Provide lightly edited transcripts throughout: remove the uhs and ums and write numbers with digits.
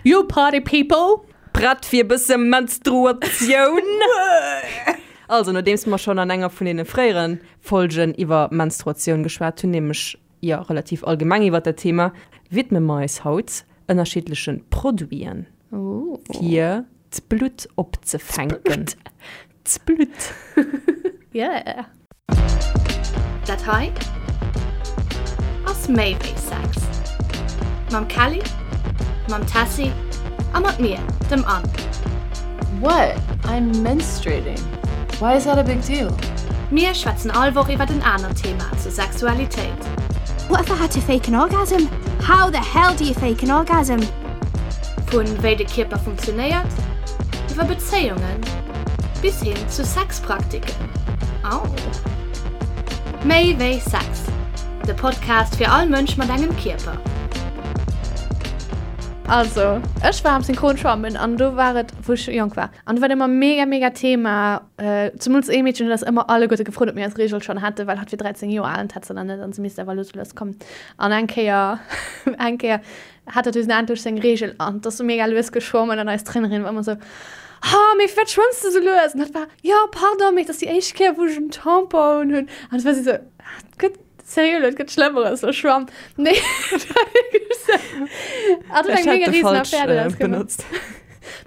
You party people! Prett fir e bësse Menstruatioun? Also, nodeems mer schonn an enger vun deene fréiere Folgen iwwer Menstruatioun geschwat hunn, nämlech, jo, relativ allgemeng iwwer dat Thema, widme mer eis haut ënnerschiddleche Produiten, fir d'Blutt opzefänken. D'Blutt. Yeah. Dat hei ass méi wéi Sex. Mam Kelly, mam Tessy a mat mir, dem Anne. What? I'm menstruating. Why is that a big deal? Mir schwätzen all Woch iwwert en anert Thema zur Sexualitéit. What if I had to fake an orgasm? How the hell do you fake an orgasm? Vu wéi de Kierper funktionéiert, iwwer Bezéiungen bis hin zu Sexpraktiken. Au! Méi wéi Sex, de Podcast fir all Mënsch mat engem Kierper. Also, ech war am Synchronschwammen an do war et, wou ech jonk war, an do war et ëmmer mega, mega Thema, zemools ee Meedchen huet eis ëmmer alleguerte gefrot, ob mir eis Reegel schonn hätten, well hatt wier 13 Joer al an d'hätt se nach net an se misst awer lues a lues kommen. An eng Kéier, eng Kéier hat hatt dunn endlech seng Reegel an 't ass mega lues geschwommen an eis Trainerin war ëmmer esou, Ha, mee firwat schwëmms de sou lues? An hatt war, Jo, pardon, mee et ass déi éischt Kéier, wou ech en Tampon un hunn. An et war si sou, Et gëtt, seriö, et gëtt Schlëmmeres, lo schwamm. Nee, et war wierklech sou. Hatt huet Ech eng hätt mega de riesen falsch Affär doraus gemaach. benotzt.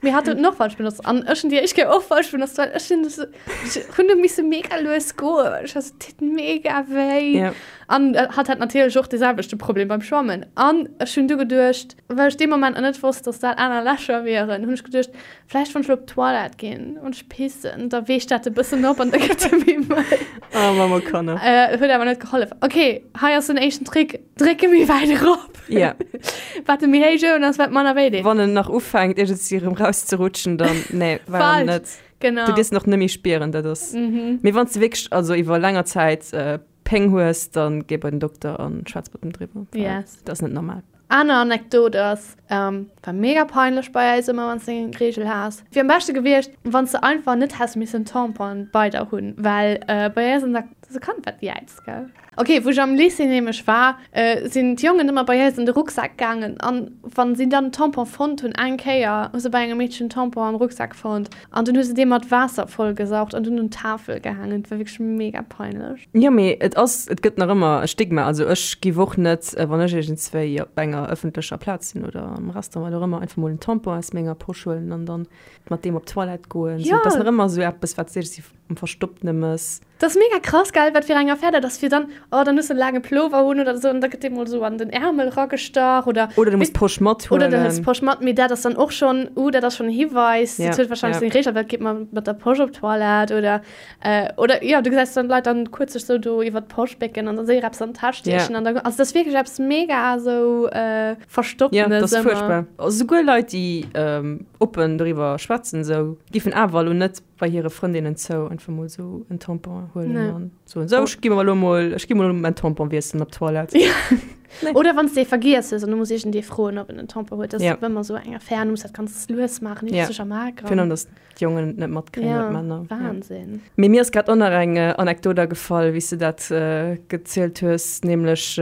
Mee hatt huet en och falsch benotzt. An ech hunn déi éischt Kéier och falsch benotzt, well ech hunn sou, ech hunn du misse mega lues goen, well ech war sou, et deet mega wéi. Ja. An hatt hat natierlech och dee selwechte Problem beim Schwammen. An ech hunn du geduecht, well ech dee Moment nach net wosst, dass dat aner Lächer wieren, hunn ech geduecht, vläicht wann ech elo op d'Toilette ginn an ech pissen, da weecht dat e bëssen op an da gëtt e méi mëll. Oh, Mamma Kanner. Äh, huet awer net gehollef. Ok, hei ass den éischten Trick, Dréck e méi wäit erop. Ja. Wat e méi héich owen ass, wat manner wéi deet. Wann en nach ufänkt, iergendwéi erëm rauszerutschen, dann, nee, war en Falsch. net. Genau. Du dierfs en och net méi spieren, dat ass. Mee wann s de wierklech, also iwwer länger Zäit Péng hues, dann géi bei den Dokter an schwätz mat em driwwer. Yes. Dat ass net normal. Aner Anekdot ass, war mega peinlech bei eis ëmmer wanns de eng Reegel has. Wier am beschte gewiescht wanns de einfach net häss missen Tampon bei der hunn, well bei eis an der, dat ass e Kand wat jäizt gell. Ok, wou ech am Lycée nämlech war, sinn d'Jongen ëmmer bei eis an de Rucksak gaangen an wann si dann Tampon fonnt hunn, eng Kéier hu se bei engem Meedchen Tampon am Rucksak fonnt, An dunn hu se dee mat Waasser vollgesaugt an dunn un d'Tafel gehaangen. Et war wierklech mega peinlech. Jo, mee et ass, et gëtt nach ëmmer e Stigma. Also ech giff och net, wann ech iergendswéi op enger ëffentlecher Plaz sinn oder am Restaurant, wat och ëmmer, einfach mol en Tampon aus menger Posch huelen an dann mat deem op d'Toilette goen. Jo. Et ass nach ëmmer esou eppes, wat s de iergendwéi am Verstoppene mëss. Dat ass mega krass, gell, wat fir eng Affär dat ass, fir dann, oh, dann hues de en laange Plover un oder esou an da gëtt dee mol esou an den Ärmel ragestach oder. Oder du muss d'Posch mathuelen. Oder du hëls d'Posch mat, mee dat ass dann och schonn, uh, dat ass schonn e Hiweis, dat huet warscheinlech seng Reegel, well geet man mat der Posch op d'Toilette oder, oder jo, du gesäis dann d'Leit dann kuerz sech esou do iwwer d'Posch bécken an da séier eppes an d'Täsch stiechen an da, also dat ass wierklech eppes mega esou Verstopptenes ëmmer. Jo, dat ass ëmmer. fuerchtbar. Souguer Leit, déi oppen doriwwer schwätzen, esou, giffen awer elo net bei hire Frëndinnen zou einfach mol sou en Tampon huelen Nee. an soen, sou, ech gi mer elo mol, ech gi mol mäin Tampon wiesselen op d'Toilette. Ja. Nee. Oder wann s de ee vergiess hues an du muss iergendee froen, ob en en Tampon huet. Dat ass Ja. ëmmer sou eng Affär an du muss dat ganz lues maachen, Ja. sech am A Virun allem, gramm. dass d'Jongen et net matkréien Ja, oder d'Männer. Ja. Wahnsinn. Mee mir ass grad och nach eng Anekdot agefall, wéi s de dat gezielt hues, nämlech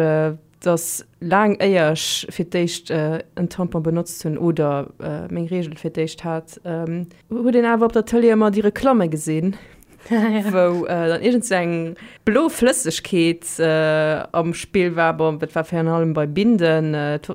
dass laang éier ech fir d'éischt en Tampon benotzt hunn oder meng Reegel fir d'éischt hat, huet een awer op der Tëlee ëmmer déi Reklamme gesinn, wou dann iergend sou eng blo Flëssegkeet am Spill war. Bon, dat war virun allem bei Binden. Et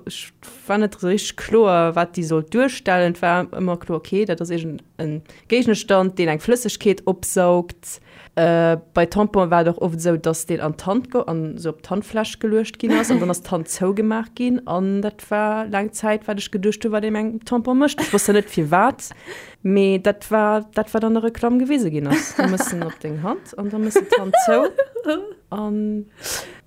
war net esou richteg kloer, wat déi sollt duerstellen. Et war ëmmer kloer, okay, dat ass iergend e Géigestand, deen eng Flëssegkeet opsaugt. Bei Tamponen war et och oft esou, dass deen an d'Hand ge an esou op d'Handfläch geluecht ginn ass an dann ass d'Hand zougemaach ginn an dat war laang Zäit wat ech geduecht hu wat ee mengem Tampon mécht. Ech wosst zwar net firwat, mee dat war dat wat an der Reklamm gewise ginn ass. Du mëss en op deng Hand an da mëss de d'Hand zou an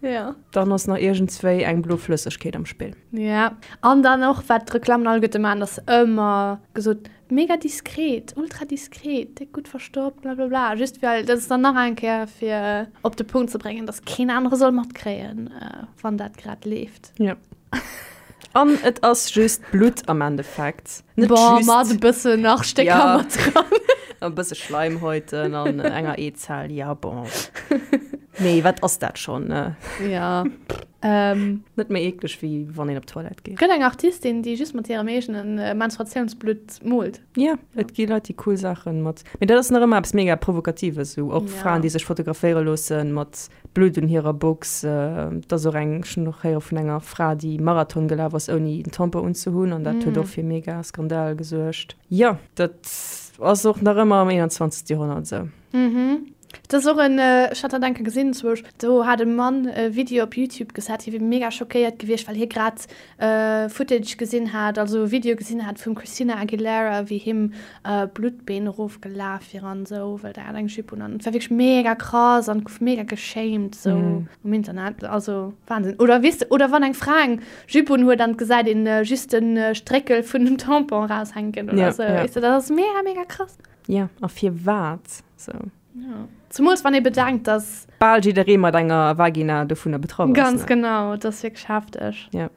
Ja. dann ass nach iergendswéi eng blo Flëssegkeet am Spill. Ja, an dann och wat d'Reklammen alleguerte maachen, ass ëmmer gesot, Mega diskret, ultra diskret, déck gutt verstoppt, blablabla. Just well dat ass dann nach eng Kéier fir op de Punkt ze bréngen, dass keen anere soll matkréien, wann dat grad leeft. Ja. An et ass just Blutt am Endeffekt. Net Boah, just. Mat e bëssen nach Stécker ja. mat dran. E bësse Schleimhäuten an enger Eezell, ja bon. Mee wat ass dat schonn, ne? Ja. Ähm. Net méi eekleg wéi wann een op d'Toilette geet. Gëtt eng Artistin, déi just mat hirem eegene Menstruatiounsblutt moolt. Ja, et gi Leit, déi cool Saachen mat. Mee dat ass nach ëmmer eppes mega Provokatives, esou och Ja. Fraen, déi sech fotograféiere loosse mat Blutt un hirer Box. Et ass och eng, ech hunn och héiere vun enger Fra, déi Marathon gelaf ass, ouni en Tampon unzehunn an dat huet och fir mega Skandal gesuergt. Jo, dat ass och nach ëmmer am 21. Joerhonnert esou. Mhm. Et ass och en, ech hat dat eng Kéier gesinn, zwousch, do hat e Mann e Video op Youtube gesat, hie wier mega schockéiert gewiescht, well hie grad Footage gesinn hat, also e Video gesinn hat vum Christina Aguilera, wéi him Blutt d'Been erofgelaf wier an esou, well der hat eng Jupe un an et war wierklech mega krass an gouf mega geshamed esou um Internet, also Wahnsinn. Oder weess de, oder wann eng Fra eng Jupe un huet an et gesäit een just de Stréckel vun dem Tampon eraushänken oder esou, weess de, dat ass mega, mega krass. Jo, a firwat sou? Jo. Zemools wann ee bedenkt, dass. Bal jidderee mat enger Vagina dovunner betraff ass. Ganz genau, et ass wierklech hefteg. Jo.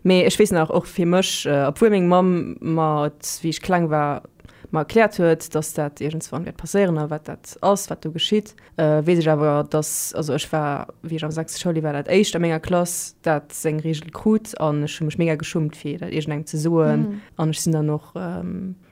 Mee ech weess nach, och fir mech, obwuel meng Mamm mer et, wéi ech kleng war, mer erkläert huet, dass dat iergendswann wäert passéieren a wat dat ass, wat do geschitt, weess ech awer, dass, also ech war, wéi ech am sechste Schouljoer war, dat éischt a menger Klass, dat seng Reegel krut an ech hu mech mega geschummt, fir dat iergendengem ze soen. An ech sinn dann och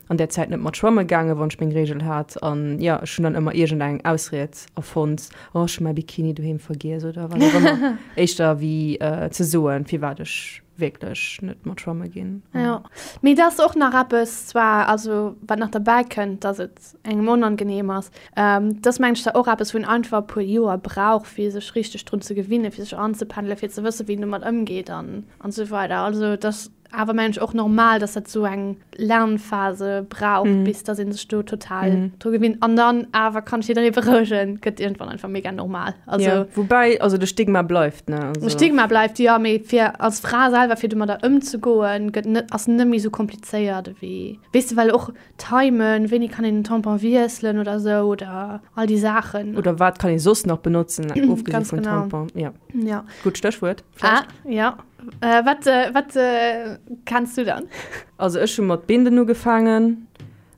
an där Zäit net mat schwamme gaangen, wann ech meng Reegel hat. An jo, ech hunn dann ëmmer iergendeng Ausried erfonnt, oh ech hu mäi Bikini doheem vergiess oder wat och ëmmer, éischter wéi ze soen, firwat ech wierklech net mat schwamme ginn. Jo, mee et ass och nach eppes zwar, also wat nach derbäi kënnt, dass et engem onangenehm ass, dat ass mengen ech zwar och eppes, wou een einfach e puer Joer brauch, fir sech richteg drun ze gewinnen, fir sech anzependelen, fir ze wëssen, wéi een domat ëmgeet an esou weider. Also et ass awer mengen ech och normal, dass dat sou eng Lernphase brauch, mm. bis dass een sech do total mm. dru gewinnt. An dann awer kann ech jidderee berouegen, gëtt irgendwann einfach mega normal. Also, ja. Wobei, also de Stigma bleift, ne? Also. De Stigma bleift, ja, mee fir als Fra selwer, fir domadder ëmzegoen, gëtt net, ass net méi sou komplizéiert ewéi, weess de, well och Timen, wéini kann een den Tampon wiesselen oder sou oder all déi Saachen. Oder wat kann ee soss nach benotzen, ofgesi vum Tampon, ja. Ja. Gutt Stéchwuert. Ah, ja. Äh, wat äh, wat äh, kenns du dann? Also ech hu mat Binden ugefaangen,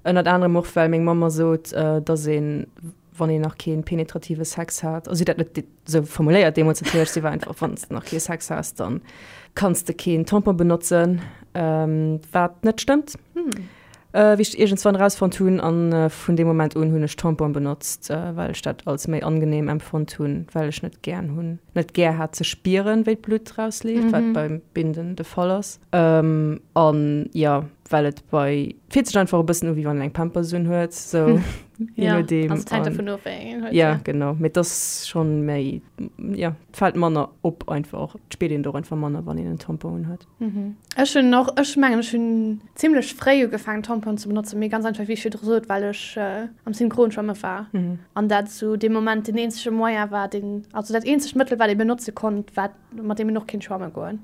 ënnert anerem och well meng Mamm mer sot, äh, dass een, wann een nach kee penetrative Sex hat, also si huet dat net sou formuléiert deemools natierlech, si war einfach, wann s de nach kee Sex has, dann kanns de keen Tampon benotzen, ähm, wat net stëmmt. Hm. Wéi ech iergendswann erausfonnt hunn, a vun deem Moment un hunn ech Tamponen benotzt, well ech dat als méi angenehm empfonnt hunn, well ech net gären hunn, net gär hat ze spieren, wéi d'Blutt rausleeft, wat beim Binden de Fall ass. An jo, well et bei, fillt sech einfach e bëssen u wéi wann een eng Pampers un huet, sou je nodeem. Also et hänkt dovun of, wéi eng een huet. Jo, genau, mee et ass schonn méi, jo, et fält manner op einfach, et spiert een et och einfach manner, wann een en Tampon un huet. Ech hunn och, ech mengen ech hunn zimlech fréi ugefaangen Tamponen ze benotzen, mee ganz einfach wéi ech virdru sot, well ech am Synchronschwamme war an dat zu deem Moment deen eenzege Moyen war, deen, also dat eenzegt Mëttel wat ee benotze konnt, wat, mat deem een och kéint schwamme goen.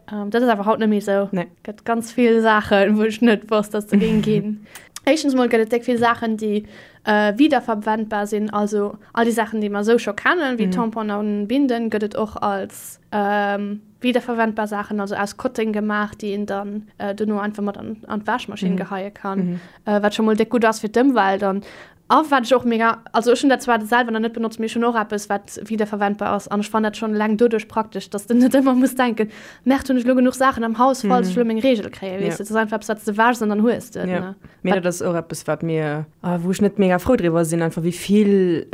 Dat ass awer haut net méi esou. Gëtt ganz vill Saachen, wou ech net wosst, dass se géing ginn. Éischtens mol gëtt et déck vill Saachen, déi wiederverwendbar sinn, also all déi Saachen, déi mer esou scho kennen, wéi Tamponen an Binden, gëtt et och als Wiederverwendbar Saachen, also aus Kotteng gemaach, déi een dann dono einfach mat an, an d'Wäschmaschinn geheie kann, wat scho mol déck gutt ass fir d'Ëmwelt. An a wat ech och mega, also ech hunn dat zwar selwer nach net benotzt, mee ech hunn och eppes, wat wiederverwendbar ass an ech fannen dat schonn eleng doduerch praktesch, dass de net ëmmer muss denken, Merde, hunn ech elo genuch Saachen am Haus, falls ech elo meng Reegel kréien, weess de. Dat ass einfach eppes, wat s de wäschs an dann hues de et, ne. Mee dat ass och eppes, wat mir, wou ech net mega frou driwwer sinn, einfach wéi vill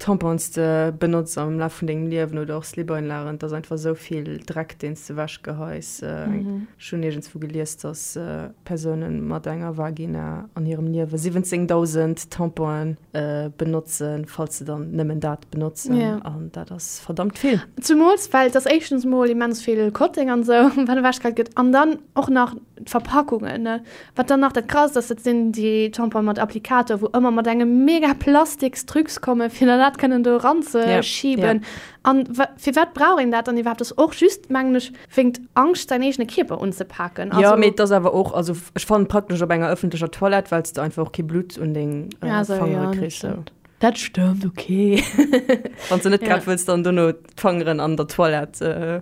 Tampons de benotz am Laf vun dengem Liewen oder och Slip-Einlagen. Et ass einfach esou vill Dreck, deen s de ewech geheis. Ech hunn iergendswou gelies, dass Persounen mat enger Vagina an hirem Liewe 17.000 Tamponen benotzen, falls se dann nëmmen dat benotzen. An dat ass verdammt vill. Zumools well et ass éischtens mol immens vill Kotteng an esou, wat ewechgeheit gëtt, an dann och nach d'Verpackungen, ne. Wat dann nach dat Krasst ass, dat sinn déi Tamponen mat Applikator, wou ëmmer mat engem mega plastiks Trucs kommen, fir dann dat kënnen do eranzeschieben. An firwat brauch een dat dann iwwerhaapt? Dat ass och just, mengen ech, wéingt Angscht, säin eegene Kierper unzepaken. Jo, mee et ass awer och, also ech fannen praktesch op enger ëffentlecher Toilette, well s de einfach och kee Blutt un deng Fangere kriss. Sou. Dat stëmmt, ok. Wann s de net grad wëlls dann dono d'Fangeren an der Toilette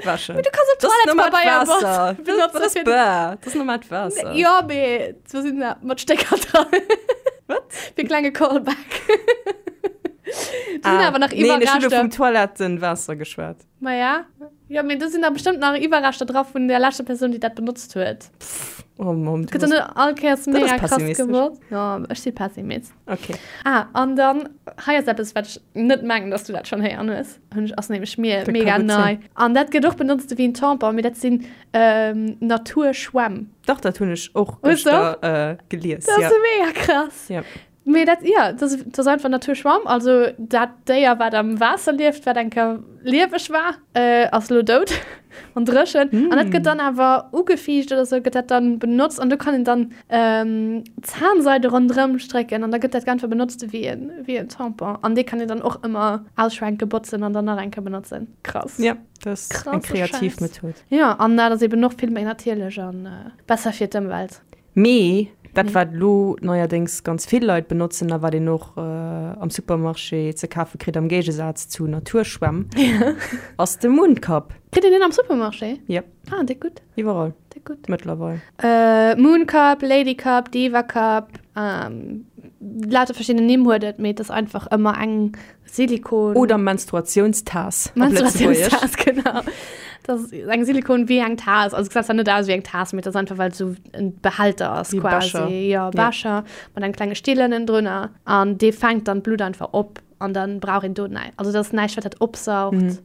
wäschen. Mee du kanns och Toilettepabeier benotzen. Dat ass normaalt Waasser. Jo, mee do sinn mat Stécker dran. Wat? Fir klenge Callback. Do sinn awer nach Ah, Nee, ech hunn elo Iwwerreschter. vum Toilettenwaasser geschwat. Maja. Jo, mee do sinn da bestëmmt nach Iwwerreschter dra vun der leschter Persoun, déi dat benotzt huet. Oh Mamm, du Gëtt dann bass. net all Kéiers Dat ass mega krass pessimistesch. gewosst. Jo, ech si Pessimist. Okay. Ah, an dann, hei ass eppes, wat ech net mengen, dass du dat schonn héieren hues. Hunn ech, ass nämlech mir Dat ka mega gutt nei. sinn. An dat gëtt och benotzt ewéi en Tampon, mee dat sinn ähm, Naturschwämm. Dach, dat hunn ech och Hues du och? gëschter äh, gelies. Dat ass Ja. so mega krass. Ja. Mee dat, ja, dat ass, dat ass einfach Naturschwamm. Also dat Déier, wat am Waasser lieft, wat eng Kéier lieweg war, äh, ass elo dout an dréchen. An dat gëtt dann awer ugefiicht oder sou, gëtt dat dann benotzt an do kann een dann ähm, Zahnseide ronderëm strécken an da gëtt dat einfach benotzt wéi en, wéi en Tampon. An dee kann een dann och ëmmer ausschwenken, botzen an dann nach eng Kéier benotzen. Krass. Ja, dat ass eng Krasse kreativ Schäiss. Method. Ja, an dat ass eben och vill méi natierlech an äh, besser fir d'Ëmwelt. Mee dat wat elo neierdéngs ganz vill Leit benotzen a wat een och am Supermarché ze kafe kritt, am Géigesaz zu Naturschwämm, ass de Mooncup. Kritt een deen am Supermarché? Yep. Ah, déck gutt. Iwwerall. Déck gutt. Mëttlerweil. Mooncup, Ladycup, Divacup, lauter verschidden Nimm huet et, mee et ass einfach ëmmer eng Silikon. Oder Menstruatiounstaass op Lëtzebuergesch. Menstruatiounstaass, genau. Dat ass eng Silikon wéi eng Taass. Also gesäit zwar net aus wéi eng Taass, mee et ass einfach, well et esou en Behälter ass Wéi e quasi. Becher. Jo, Becher mat engem klenge Still ënnendrunner. An dee fänkt dann d'Blutt einfach op an dann brauch een do näischt. Also dat ass näischt, wat dat opsaugt.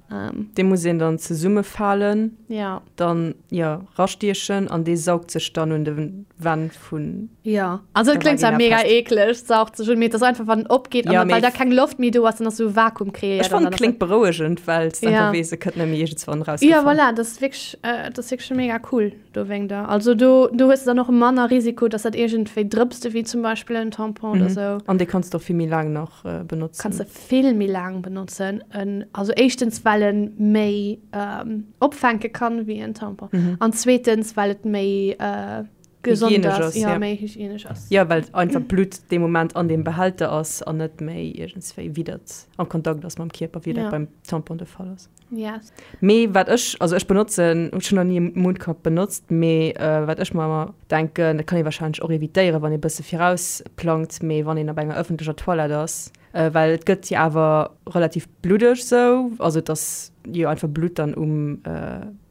Dee muss een dann zesummefalen, Ja. dann, jo, rastiechen an dee saugt sech dann un de Wänn vun Ja, also et kléngt zwar mega eekleg, saugt sech un, mee et ass einfach wann en opgeet an well da keng Loft méi do ass, dann ass esou Vakuum kreéiert. Ech fannen et kléngt berouegend, well s de einfach weess, e kënnt net méi iergendswann erausgefall. Ja voilà, dat ass wierklech, dat ass wierklech mega cool dowéinter. Also do, do hues de dann och manner Risiko, dass dat iergendwéi drëpst, ewéi zum Beispill en Tampon oder sou. An dee kanns de och vill méi laang nach benotzen. Kanns de vill méi laang benotzen. Also éischtens well en méi opfänke kann wéi en Tampon an zweetens well et méi gesond ass, ja, méi hygienesch ass. Ja, well einfach d'Blutt dee Moment an deem Behälter ass an net méi iergendswéi widdert am Kontakt ass mam Kierper, wéi dat beim Tampon de Fall ass. Yes. Mee wat ech, also ech benotzen, ech hunn nach ni e Mundcup benotzt, mee wat ech mer ëmmer denken, dat kann ee warscheinlech och evitéieren, wann ee bësse virausplangt, mee wann een op enger ëffentlecher Toilette ass, well et gëtt jo awer relativ bluddeg sou, also et ass jo einfach Blutt dann um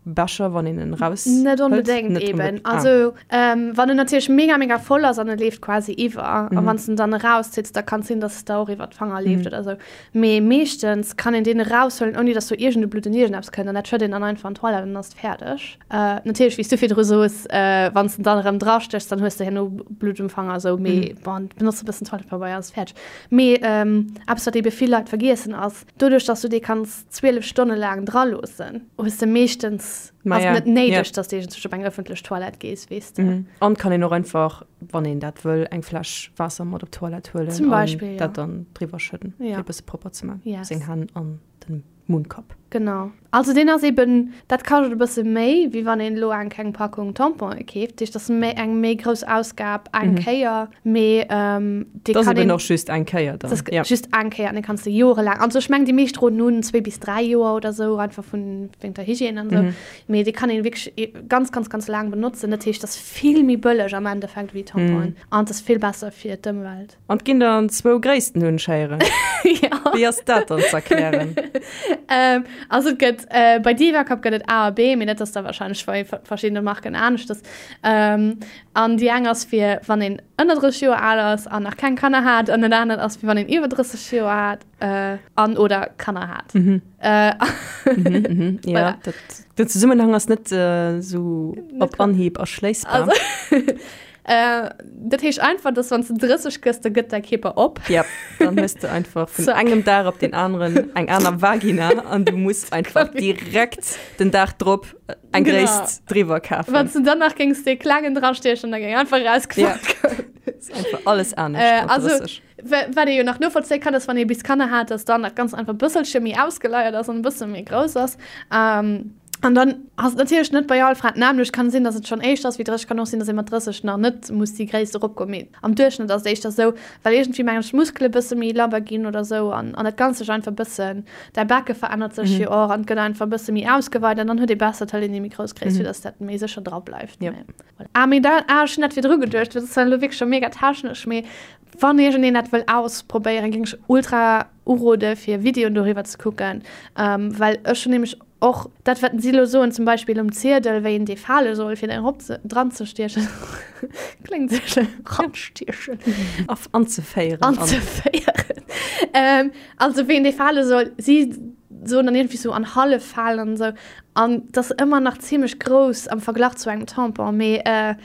Becher, wann een en raus Net onbedéngt Net eben. onbedéngt. Ah. Also ähm, wann en natierlech mega mega voll ass an e leeft quasi iwwer mhm. a wann en dann erauszitt, da kann sinn, dass es da och iwwer d'Fanger leeft mhm. oder sou. Mee meeschtens kann een deen eraushuelen, ouni dass do iergende Blutt en iergendeppes kënnt an dat schëtt een dann einfach an d'Toilette an dann ass et fäerdeg. Äh, natierlech, wéi s du virdru soos, äh, wann s de dann erëm drastéchs, dann hues de herno Blutt um Fanger sou, mee mhm. bon, benotz e bëssen Toilettepabeier, ass fäerdeg. Mee ähm, eppes, wat ebe vill Leit vergiessen ass, doduerch, dass du dee kanns 12 Stonne laang dra loossen, hues de meeschtens, Ma ass ja, net néideg, ja. dass de iergendzwousch op eng ëffentlech Toilette gees, weess de. Mhm. An kann een och einfach, wann een dat wëll, eng Fläsch Waasser mat op d'Toilette huelen Zum Beispill, an ja. dat dann driwwer schëdden, Ja. fir e bësse propper ze man, Yes. seng Hänn an den Mundcup. Genau. Also deen ass eben, dat kascht e bësse méi, wéi wann een elo eng kleng Packung Tamponen keeft. Dat heescht, dat ass méi eng méi grouss Ausgab eng Kéier, mee dee Dat ass kann eben een, och just eng Kéier dann. dat ass Ja. just eng Kéier an dee kanns de jorelaang, also ech mengen déi meescht roden un zwéi bis dräi Joer oder sou, einfach vun wéinst der Hygiène an sou, mee dee kann een wierklech ganz, ganz, ganz laang benotzen. Dat heescht, dat ass vill méi bëlleg am Endeffekt wéi Tamponen an et ass vill besser fir d'Ëmwelt. An et ginn der an zwou Gréissten, hunn ech héieren. Ja. Wéi ass dat dann z'erklären? Ähm, also et gëtt, äh, bei Divacup gëtt et A a B, mee dat ass da wahrscheinlech bei verschiddene Marken aneschters. Ähm, an déi eng ass fir wann een ënner 30 Joer al ass an nach keng Kanner hat, an dat anert ass fir wann een iwwer 30 Joer hat, äh, an oder Kanner hat. Mhm. Äh, Mhm, mhm. Ja, Voilà. dat, den Zesummenhang ass net äh, sou op Anhieb erschléissbar. Also, Äh, dat heescht einfach, dass wann du 30 gëss, da gëtt däi Kierper op. Ja, dann hues du einfach vun Zack. engem Dag op den anderen eng aner Vagina an du muss einfach direkt den Dag drop eng Genau. Gréisst driwwer kafen. Wann du dann nach géings dee klengen drastiechen, da géing einfach rausgefallen. Ja. Ist einfach alles anescht Äh, mat also, 30. wa- wat ee jo nach novollzéie kann, ass, wann ee bis Kanner hat, dass dann dat Ganzt einfach e bësselche méi ausgeleiert ass an e bësse méi grouss ass. Ähm, An dann ass et natierlech net bei all Fra d'nämmlecht. Kann sinn, dass et schonn éischter ass wéi 30, kann och sinn, dass ee mat 30 nach net muss déi Gréisst eropgoen. Mee am Duerchschnëtt ass et éischter esou, well iergendwéi mengen ech d'Muskele bësse méi labber ginn oder esou an an dat Ganzt sech einfach bëssen, däi Becke verännert sech jo och an et gëtt einfach e bësse méi ausgeweit an dann huet ee besser, et hëlt een déi méi grouss Gréisst, fir dass dat méi sécher dra bleift. Mee voilà. Ah mee da, ah ech hunn dat virdru geduecht, dat ass dann elo wierklech scho mega technesch, mee wann iergendeen dat wëll ausprobéieren, géing ech ultra. urode fir Videoen doriwwer ze kucken, well ech hunn nämlech och dat wat si elo soen, zum Beispill um Ziedel, wéi een dee fale soll fir den erop ze dran ze stiechen, kléngt esou schlëmm, ranstiechen, anzeféieren, anzeféieren, also wéi een dee fale soll, si soen dann iergendwéi sou an hallef falen an esou, an et ass ëmmer nach zimlech grouss am Verglach zu engem Tampon, mee et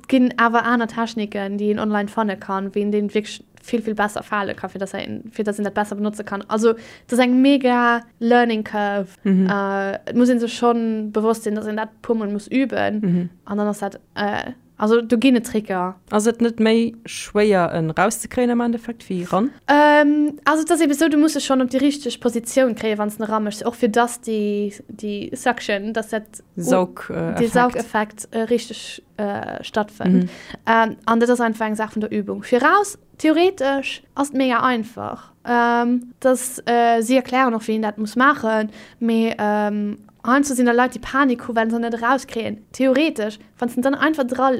ginn awer aner Techniken, déi een online fanne kann, wéi een dee wierklech vill vill besser fale kann, fir dass een fir dass een dat besser benotze kann. Also et ass eng mega learning curve. Mhm. Äh, et muss een sech schonn bewosst sinn, dass een dat puer mol muss üben mhm. an dann ass dat äh, also do ginn et Tricker. Ass et net méi schwéier en rauszekréien am Endeffekt wéi ran? Ähm, also et ass eben sou, du muss e schonn op déi richteg Positioun kréien, wann s de en eraméchs, och fir dass déi déi Suction, dass dat Saug, äh, dee Saugeffekt äh, richteg äh, stattfënnt. Mhm. Ähm, an dat ass einfach eng Saach vun der Übung. Viraus, theoretesch ass et mega einfach. Ähm, dass, äh, si erklären och, wéi een dat muss maachen, mee ähm, heiansdo sinn da Leit, déi Panik hu well se net erauskréien. Theoretesch, wann s de en dann einfach dra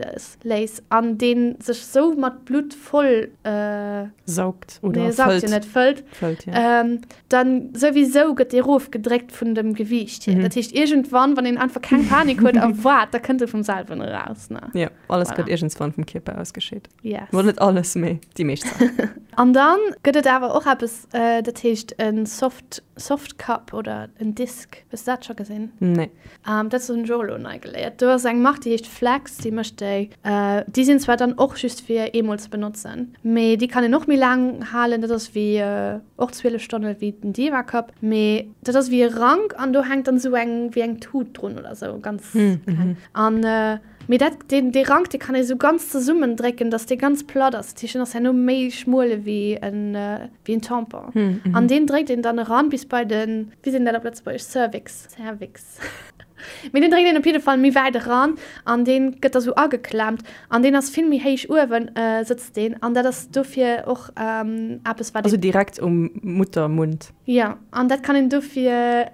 léiss an dee sech sou mat Blutt voll äh, Saugt oder nee, saugt jo fëllt. net, fëllt, Fëllt, ja. ähm, dann souwisou gëtt dee rofgedréckt vun dem Gewiicht hier. Dat heescht iergendwann, wann een einfach keng Panik huet a waart, da kënnt e vum selwen eraus, ne? Ja, alles Voilà. gëtt iergendswann vum Kierper ausgescheet. Yes. Bon, net alles, mee déi meescht Saachen. An dann gëtt et awer och eppes, dat heescht e Soft, Soft Cup oder en Disk. Hues de dat scho gesinn? Nee. Dat hunn ech och elo nei geléiert. Do ass eng Mark, déi heescht Flex, déi mécht déi. Déi sinn zwar dann och just fir eemol ze benotzen, mee déi kann een och méi laang halen. Dat ass wéi och 12 Stonne wéi den Diva Cup, mee dat ass wéi e Rank an do hänkt dann esou eng wéi eng Tut drun oder sou, ganz kleng. An mee dat deen dee Rank, dee kann ee sou ganz zesummen drécken, dass dee ganz platt ass. Dat heescht, en ass herno méi schmuel ewéi en wéi en Tampon. An deen dréckt een dann eran bis bei den, wéi seet een dat op Lëtzebuergesch, Cervix, Cervix. Mee deen dréckt een op jidde Fall méi wäit eran an deen gëtt da sou ageklemmt an deen ass vill méi héich uewen sëtzt deen an dat ass dofir och eppes wat Also direkt um Muttermund? Jo, an dat kann een dofir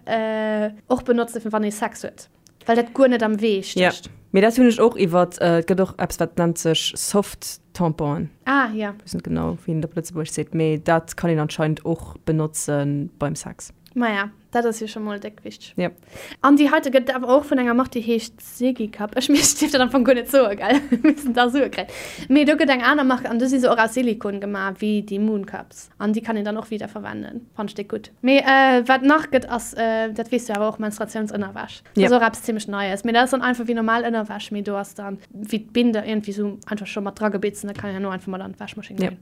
och benotzen fir wann ee Sex huet, well dat guer net am Wee stécht. Jo, mee dat hunn ech och iwwert, et gëtt och eppes wat nennt sech Soft Tamponen. Ah jo. Weess net genau wéi een et op Lëtzebuergesch seet, mee dat kann een anscheinend och benotze beim Sex. Maja. Dat ass jo scho mol déck wichteg. Yep. An déi heite gëtt et awer och vun enger Mark, déi heescht Ziggy Cup. Ech mir dierf dat am Fong guer net soen, gell? Mir missten da Sue kréien. Mee do gëtt eng aner Mark an do si se och aus Silikon gemaach, wéi déi Moon Cups. An déi kann een dann och wieder verwenden. Fannt ech déck gutt. Mee wat nach gëtt ass, dat weess du awer och, Menstruatiounsënnerwäsch. Dat Yep. ass och eppes zimmlech Neies. Mee dat ass dann einfach wéi normal Ënnerwäsch, mee do ass dann wéi d'Binde iergendwéi sou einfach scho mat dragebitzt an da kann een herno einfach mat an d'Wäschmaschinn Yep. goen.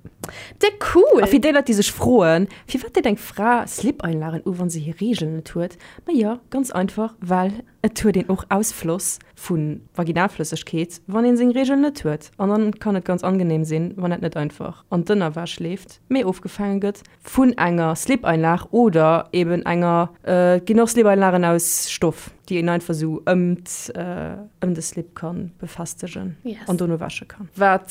Déck cool! A fir déi Leit, déi sech froen, Firwat deet eng Fra Slip-Einlagen u wann se hir Reegel net huet? Ma jo, ganz einfach, well et huet een och Ausfloss vu Vaginalflëssegkeet wann een seng Reegel net huet. An dann kann et ganz angenehm sinn, wann dat net einfach an d'Ënnerwäsch leeft, mee ofgefaange gëtt vun enger Slip-Einlag oder eben enger, et ginn och Slip-Einlagen aus Stoff, déi een einfach esou ëm ëm de Slip ka befestegen an dono wäsche kann. Wat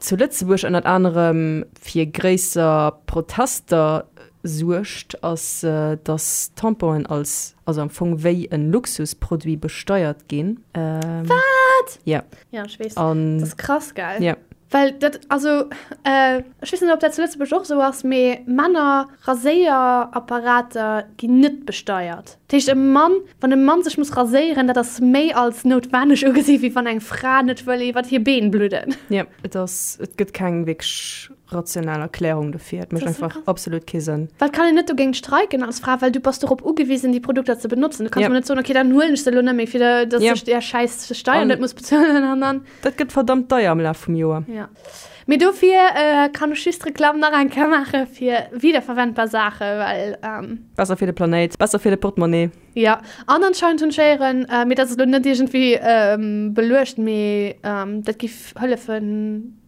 zu Lëtzebuerg ënnert anerem fir gréisser Protester suergt, ass, datt Tamponen als, also am Fong wéi e Luxusproduit besteiert ginn. Wat? Ja. Ja, ech weess. An. Dat ass krass, gell? Ja. Well dat, also, ech weess net, ob dat zu Lëtzebuerg och esou ass, mee Männer-Raséierapparater ginn net besteiert. Dat heescht, e Mann, wann e Mann sech muss raséieren, dat ass méi als noutwenneg ugesi wéi wann eng Fra net wëll iwwert hir Been bludden. Jo, et ass, et gëtt keng wierklech rational Erklärung dofir. Et mécht einfach absolut kee Sënn. Well et kann een net dogéint streiken als Fra, well du bass dorop ugewisen, déi Produkter ze benotzen. Du kanns mol net soen, okay, dann huelen ech se elo net méi, fir datt ech där schäiss Steier net muss bezuelen an dann. Dat gëtt verdammt deier am Laf vum Joer. Jo. Mee dofir kann ech just Reklamm nach eng Kéier maache fir wiederverwendbar Saache, well. Besser fir de Planéit, besser fir de Portemonnaie. Jo, an anscheinend hunn ech héieren, mee dat ass elo net iergendwéi beluecht, mee dat giff hëllefe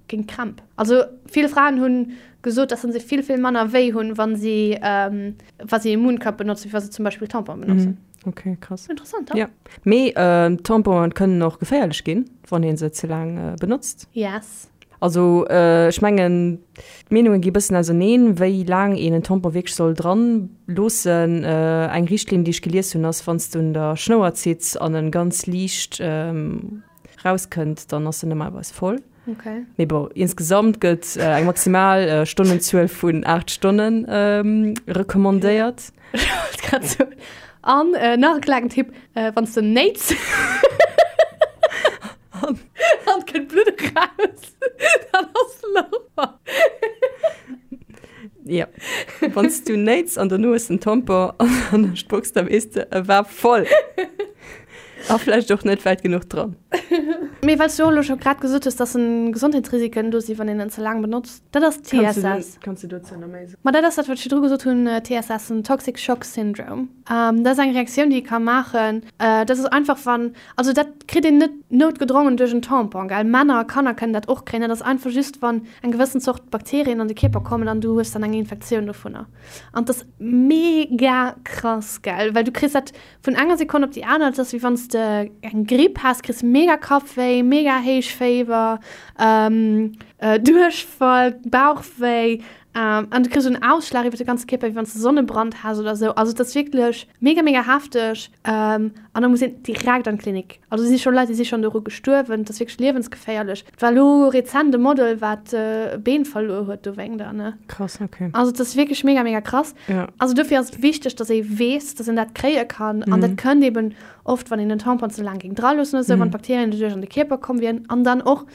géint Krämp. Also vill Fraen hu gesot, dass se vill, vill manner wéi hunn, wa si, wa si e Mooncup benotzen, wéi wa se zum Beispill Tampon benotzen. Ok, krass. Interessant, ja. Mee Tamponen kënnen och geféierlech ginn, wann ee se ze laang benotzt. Yes. Also ech mengen, d'Meenunge gi bëssen auserneen, wéi laang een en Tampon wierklech soll dran loossen. Eng Richtlinn, déi ech gelies hunn, ass, wann s du un der Schnouer zitts an en ganz liicht rauskënnt, dann ass en normalerweis voll. Okay. Mee bon, insgesamt gëtt eng maximal Stonnenzuel vun 8 Stonnen recommandéiert. Ech wollt grad soen. An nach e klengen Tipp, wann s de néits an et kënnt Blutt eraus, dann ass Lover. Ja, wann s du néits an dono hues den Tampon an der Spucks, da weess de, e war voll. A vläicht och net wäit genuch dran. Mee well s du och elo scho grad gesot hues, dass en Gesondheetsrisiken do sinn, wann een en ze laang benotzt, dat ass TSS. Kanns du dozou nach méi soen? Ma dat ass dat, wat ech virdru gesot hunn, TSS, den Toxic Shock Syndrome. Dat ass eng Reaktioun, déi ee ka maachen. Dat ass einfach, wann, also dat kritt een net noutgedrongen duerch en Tampon, gell. Männer a Kanner kënnen dat och kréien. Dat ass einfach just, wann eng gewëssen Zort Bakterien an de Kierper kommen an du hues dann eng Infektioun dovunner. An dat ass mega krass, gell, well du kriss dat Vun enger Sekonn op déi aner, et ass wéi wann s de eng Gripp has, kriss mega Kappwéi, mega héich Féiwer, Duerchfall, Bauchwéi an du kriss en Ausschlag iwwer de ganze Kierper, wéi wann s de Sonnebrand has oder esou. Also et ass wierklech mega, mega hefteg an da muss een direkt an d'Klinik. Also et si scho Leit, déi si schonn doru gestuerwen, et ass wierklech liewensgeféierlech. Et war elo rezent e Model, wat e Been verluer huet dowéinter, ne? Krass, okay. Also et ass wierklech mega, mega krass. Ja. Also dofir ass et wichteg, dass ee weess, dass een dat kréie kann. An dat kënnt eben oft, wann een den Tampon ze laang géing draloossen oder sou, wann d'Bakterien doduerch an de Kierper komm wieren. An dann och,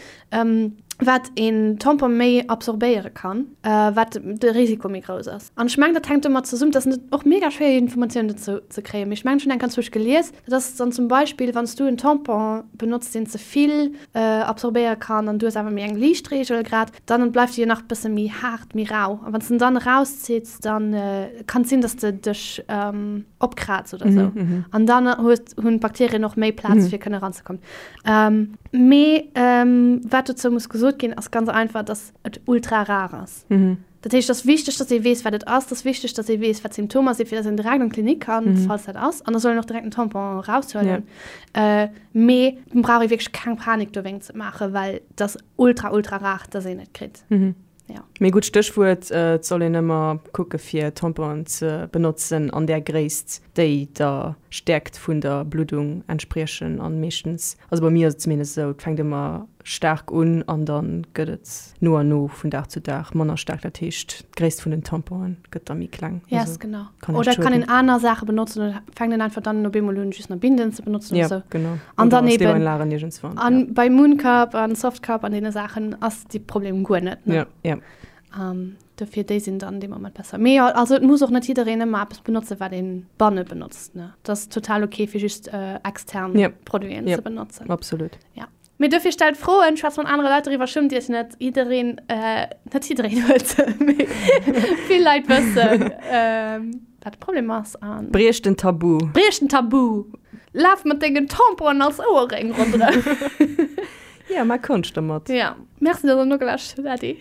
wat een Tampon méi absorbéiere kann, wat de Risiko méi grouss ass. An ech mengen, dat hänkt domat zesummen, dat ass och mega schwéier Informatiounen dozou ze kréien, mee ech mengen, ech hunn eng ganz wousch gelies, dat ass dann zum Beispill, wann s du en Tampon benotzt, deen ze vill absorbéiere kann an du hues awer méi eng liicht Reegel grad, dann bleift déi jo nach bësse méi haart, méi rau. A wann s de en dann erauszitt, dann kann et sinn, dass de dech opkraaz oder sou. An dann hues, hunn d'Bakterien och méi Plaz, fir kënne eranzekommen. Mee wat dozou muss gesot ginn, ass ganz einfach, dass et ultra rar ass. Dat heescht, et ass wichteg, dass ee weess, wat et ass. Et ass wichteg, dass ee weess, wat d'Symptomer sinn, fir dass een direkt an d'Klinik kann, falls dat ass. An da soll een och direkt den Tampon eraushuelen. Mee et brauch ee wierklech keng Panik dowéinst ze maachen, well et ass ultra, ultra rar, dass een et kritt. Ja. Mee gutt Stéchwuert, et soll een ëmmer kucke fir Tamponen ze benotzen an där Gréisst, déi der Stäerkt vun der Bluddung entspriechen. An meeschtens, also bei mir ass et zumindest esou, et fänkt ëmmer staark un an da gëtt et no an no vun Dag zu Dag manner staark. Dat heescht, d'Gréisst vun den Tamponen gëtt da méi kleng. Yes, genau. Oder kann een aner Saache benotzen oder fänkt een einfach dann op eemol un, just nach Binden ze benotzen oder sou. Genau. An dann eben an bei Mooncup an Softcup an deene Saachen ass dee Problem guer net. Ne? Ja, ja. Um, dofir déi sinn dann dee Moment besser. Mee jo, also et muss och net jiddereen ëmmer eppes benotze wat een banne benotzt. Ne? Dat ass total okay fir just äh, extern ja. Produiten ja. ze benotzen. Absolut. Ja. Mee dofir stellt Froen, schwätzt mat anere Leit doriwwer, schummt iech net. Jiddereen, äh, net jiddereen huet se, mee vill Leit wëssen, ähm, wat de Problem ass an. Briecht den Tabu! Briecht den Tabu! Laf mat dengen Tamponen als Ouerréng ronderëm! Ja, maach Konscht domat! Ja. Merci, dass der nogelauschtert hutt. Äddi!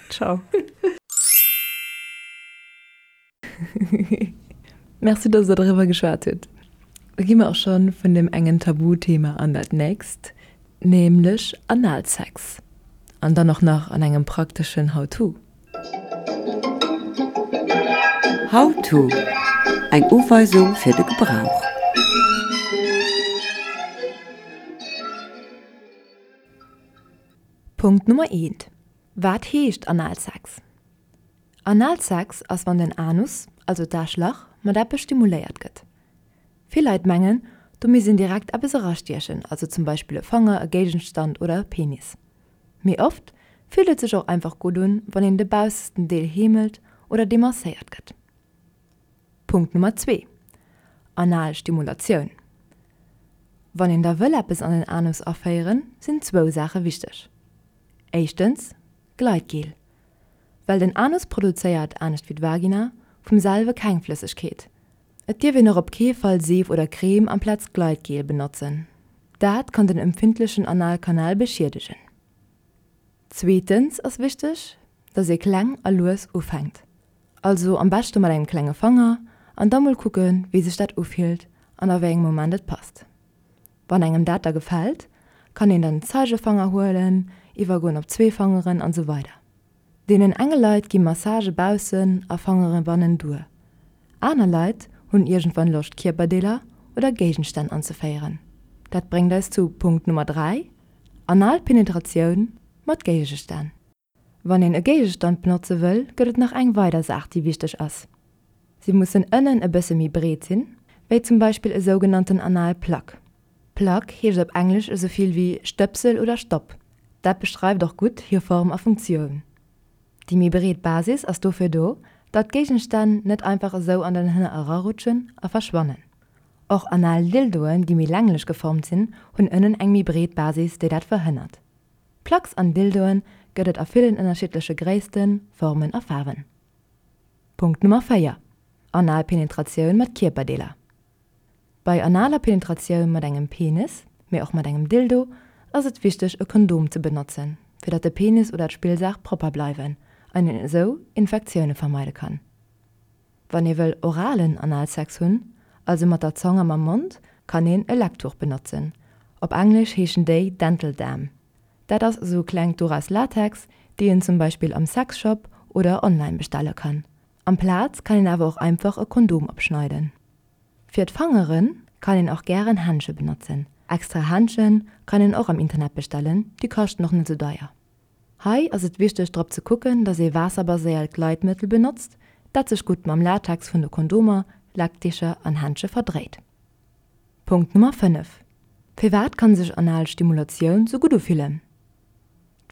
Ciao! Merci, dass der doriwwer geschwat hutt. Da gi mer och scho vun deem engen Tabuthema an dat nächst, nämlech Analsex. An dann och nach an engem prakteschen How-to. How-to, Eng Uweisung fir de Gebrauch. Punkt Nummer eent, Wat heescht Analsex? Analsex ass wann den Anus, also d'Aarschlach, mat eppes stimuléiert gëtt. Vill Leit mengen, do misst een direkt eppes erastiechen, also zum Beispill e Fanger, e Géigenstand oder e Penis. Mee oft fillt et sech och einfach gutt un, wann een de baussesten Deel heemelt oder demasséiert gëtt. Punkt Nummer zwee, Anal Stimulatioun. Wann een da wëll eppes an den Anus aféieren, sinn zwou Saache wichteg. Éischtens, Gleitgel. Well den Anus produzéiert, anescht wéi d'Vagina, vum selwe keng Flëssegkeet. Et dierf een och op kee Fall Seef oder Creme amplaz Gleitgel benotzen. Dat kann den empfindlechen Analkanal beschiedegen. Zweetens ass wichteg, dass ee kleng a lues ufänkt. Also am beschte mat engem klenge Fanger an da mol kucken, wéi sech dat ufillt an a wéi engem Moment et passt. Wann engem dat da gefält, kann een dann den Zeigefanger huelen, iwwergoen op zwee Fangeren an sou weider. Deenen enge Leit gi Massage baussen a Fangere bannen duer. Aner Leit hunn iergendwann Loscht Kierperdeeler oder Géigenstänn anzeféieren. Dat bréngt eis zu Punkt Nummer 3, Analpenetratioun. mat Géigestänn. Wann een e Géigestand benotze wëll, gëtt et nach eng weider Saach, déi wichteg ass. Si mussen ënnen e bësse méi breet sinn, wéi zum Beispill e sougenannten Analplug. Plug heescht op Englesch esou vill wéi Stëpsel oder Stopp. Dat beschreift och gutt hir Form a Funktioun. Déi méi breet Basis ass dofir do, datt d'Géigenstänn net einfach esou an den Hënner erarutschen a verschwannen. Och Anal-Dildoen, déi méi länglech geformt sinn, hunn ënnen eng méi breet Basis, déi dat verhënnert. Plugs an Dildoen gëtt et a villen ënnerschiddleche Gréissten, Formen a Faarwen. Punkt Nummer 4, Anal Penetratioun mat Kierperdeeler. Bei analer Penetratioun mat engem Penis, mee och mat engem Dildo, ass et wichteg e Kondom ze benotzen, fir datt de Penis oder d'Spillsaach propper bleiwen an een esou Infektioune vermeide kann. Wann ee wëll oralen Analsex hunn, also mat der Zong a mam Mond, kann een e Lecktuch benotzen. Op Englesch heeschen déi Dental Dam. Dat ass esou e klengt Duch aus Latex, déi een zum Beispill am Sexshop oder online bestelle kann. Amplaz kann een awer och einfach e Kondom opschneiden. Fir d'Fangere kann een och gären Händsche benotzen. Extra Händsche kann een och am Internet bestellen, déi kaschten och net esou deier. Hei ass et wichteg drop ze kucken, dass ee waasserbaséiert Gleitmëttel benotzt, dat sech gutt mam Latex vun de Kondomer, Leckdicher an Händsche verdréit. Punkt Nummer 5, Firwat kann sech anal Stimulatioun sou gutt ufillen?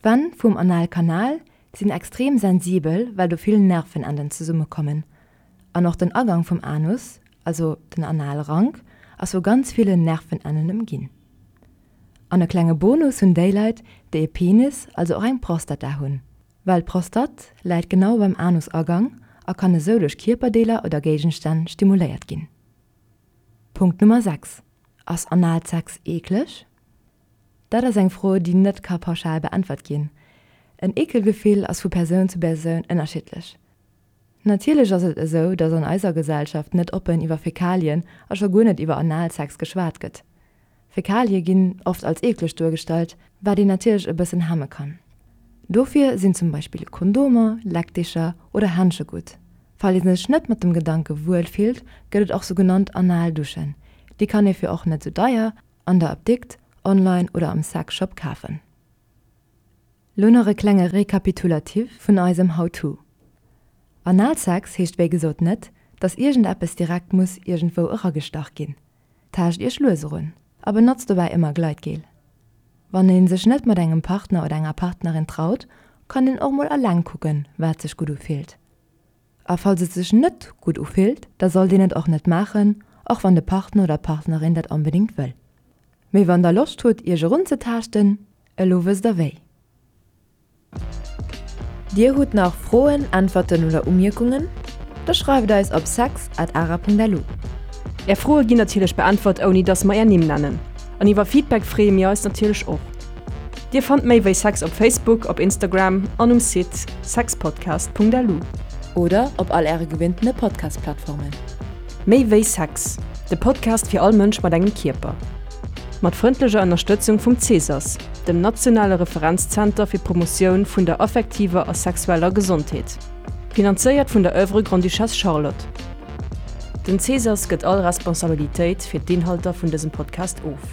D'Wänn vum Analkanal sinn extrem sensibel, well do vill Nervenenden zesummekommen. An och den Agang vum Anus, also den Analrank, ass vu ganz villen Nervenennen ëmginn. An e klenge Bonus hunn déi Leit, déi e Penis, also och eng Prostata hunn. Well d'Prostatt läit genau beim Anusagang a kann esou duerch Kierperdeeler oder Géigenstänn stimuléiert ginn. Punkt Nummer 6, Ass Analsex eekleg? Dat ass eng Fro, déi net ka pauschal beäntwert ginn. En Eekelgefill ass vu Persoun zu Persoun ënnerschiddlech. Natierlech ass et esou, datt an eiser Gesellschaft net oppen iwwer Fäkalien a scho guer net iwwer Analsex geschwat gëtt. Fäkalie ginn oft als eekleg duergestallt, wat een natierlech e bëssen hemme kann. Dofir sinn zum Beispill Kondomer, Leckdicher oder Händsche gutt. Falls ee sech net mat dem Gedanke wuel fillt, gëtt et och sougenannt Analduschen. Déi kann ee fir och net sou deier an der Apdikt, online oder am Sexshop kafen. Lo nach e klenge Rekapitulatif vun eisem How to. Analsex heescht wéi gesot net, dass iergendeppes direkt muss iergendwou eragestach ginn. Taascht iech lues erun a benotzt dobäi ëmmer Gleitgel. Wann een sech net mat engem Partner oder enger Partnerin traut, kann een och mol alleng kucken, wat sech gutt ufillt. A falls et sech net gutt ufillt, da sollt een et och net maachen, och wann de Partner oder d'Partnerin dat onbedéngt wëll. Mee wann der Loscht hutt iech erunzetaaschten, elo wësst der wéi. Dir hutt nach Froen, Äntwerten oder Umierkungen? Da schreift eis op sex at ara.lu. Är Froe ginn natierlech beäntwert ouni dass mer är Nimm nennen. An iwwer Feedback freeë mir eis natierlech och. Dir fannt méi wéi Sex op Facebook, op Instagram an um Site sexpodcast.lu. Oder op all äre gewinntene Podcast-Plattformen. Méi wéi Sex, de Podcast fir all Mënsch mat engem Kierper. Mat frëndlecher Ënnerstëtzung vum CESAS, dem nationale Referenzzenter fir d'Promotioun vun der affektiver a sexueller Gesondheet. Finanzéiert vun der Oeuvre Grande-Duchesse Charlotte. Den CESAS gëtt all Responsabilitéit fir d'Inhalter vun dësem Podcast of.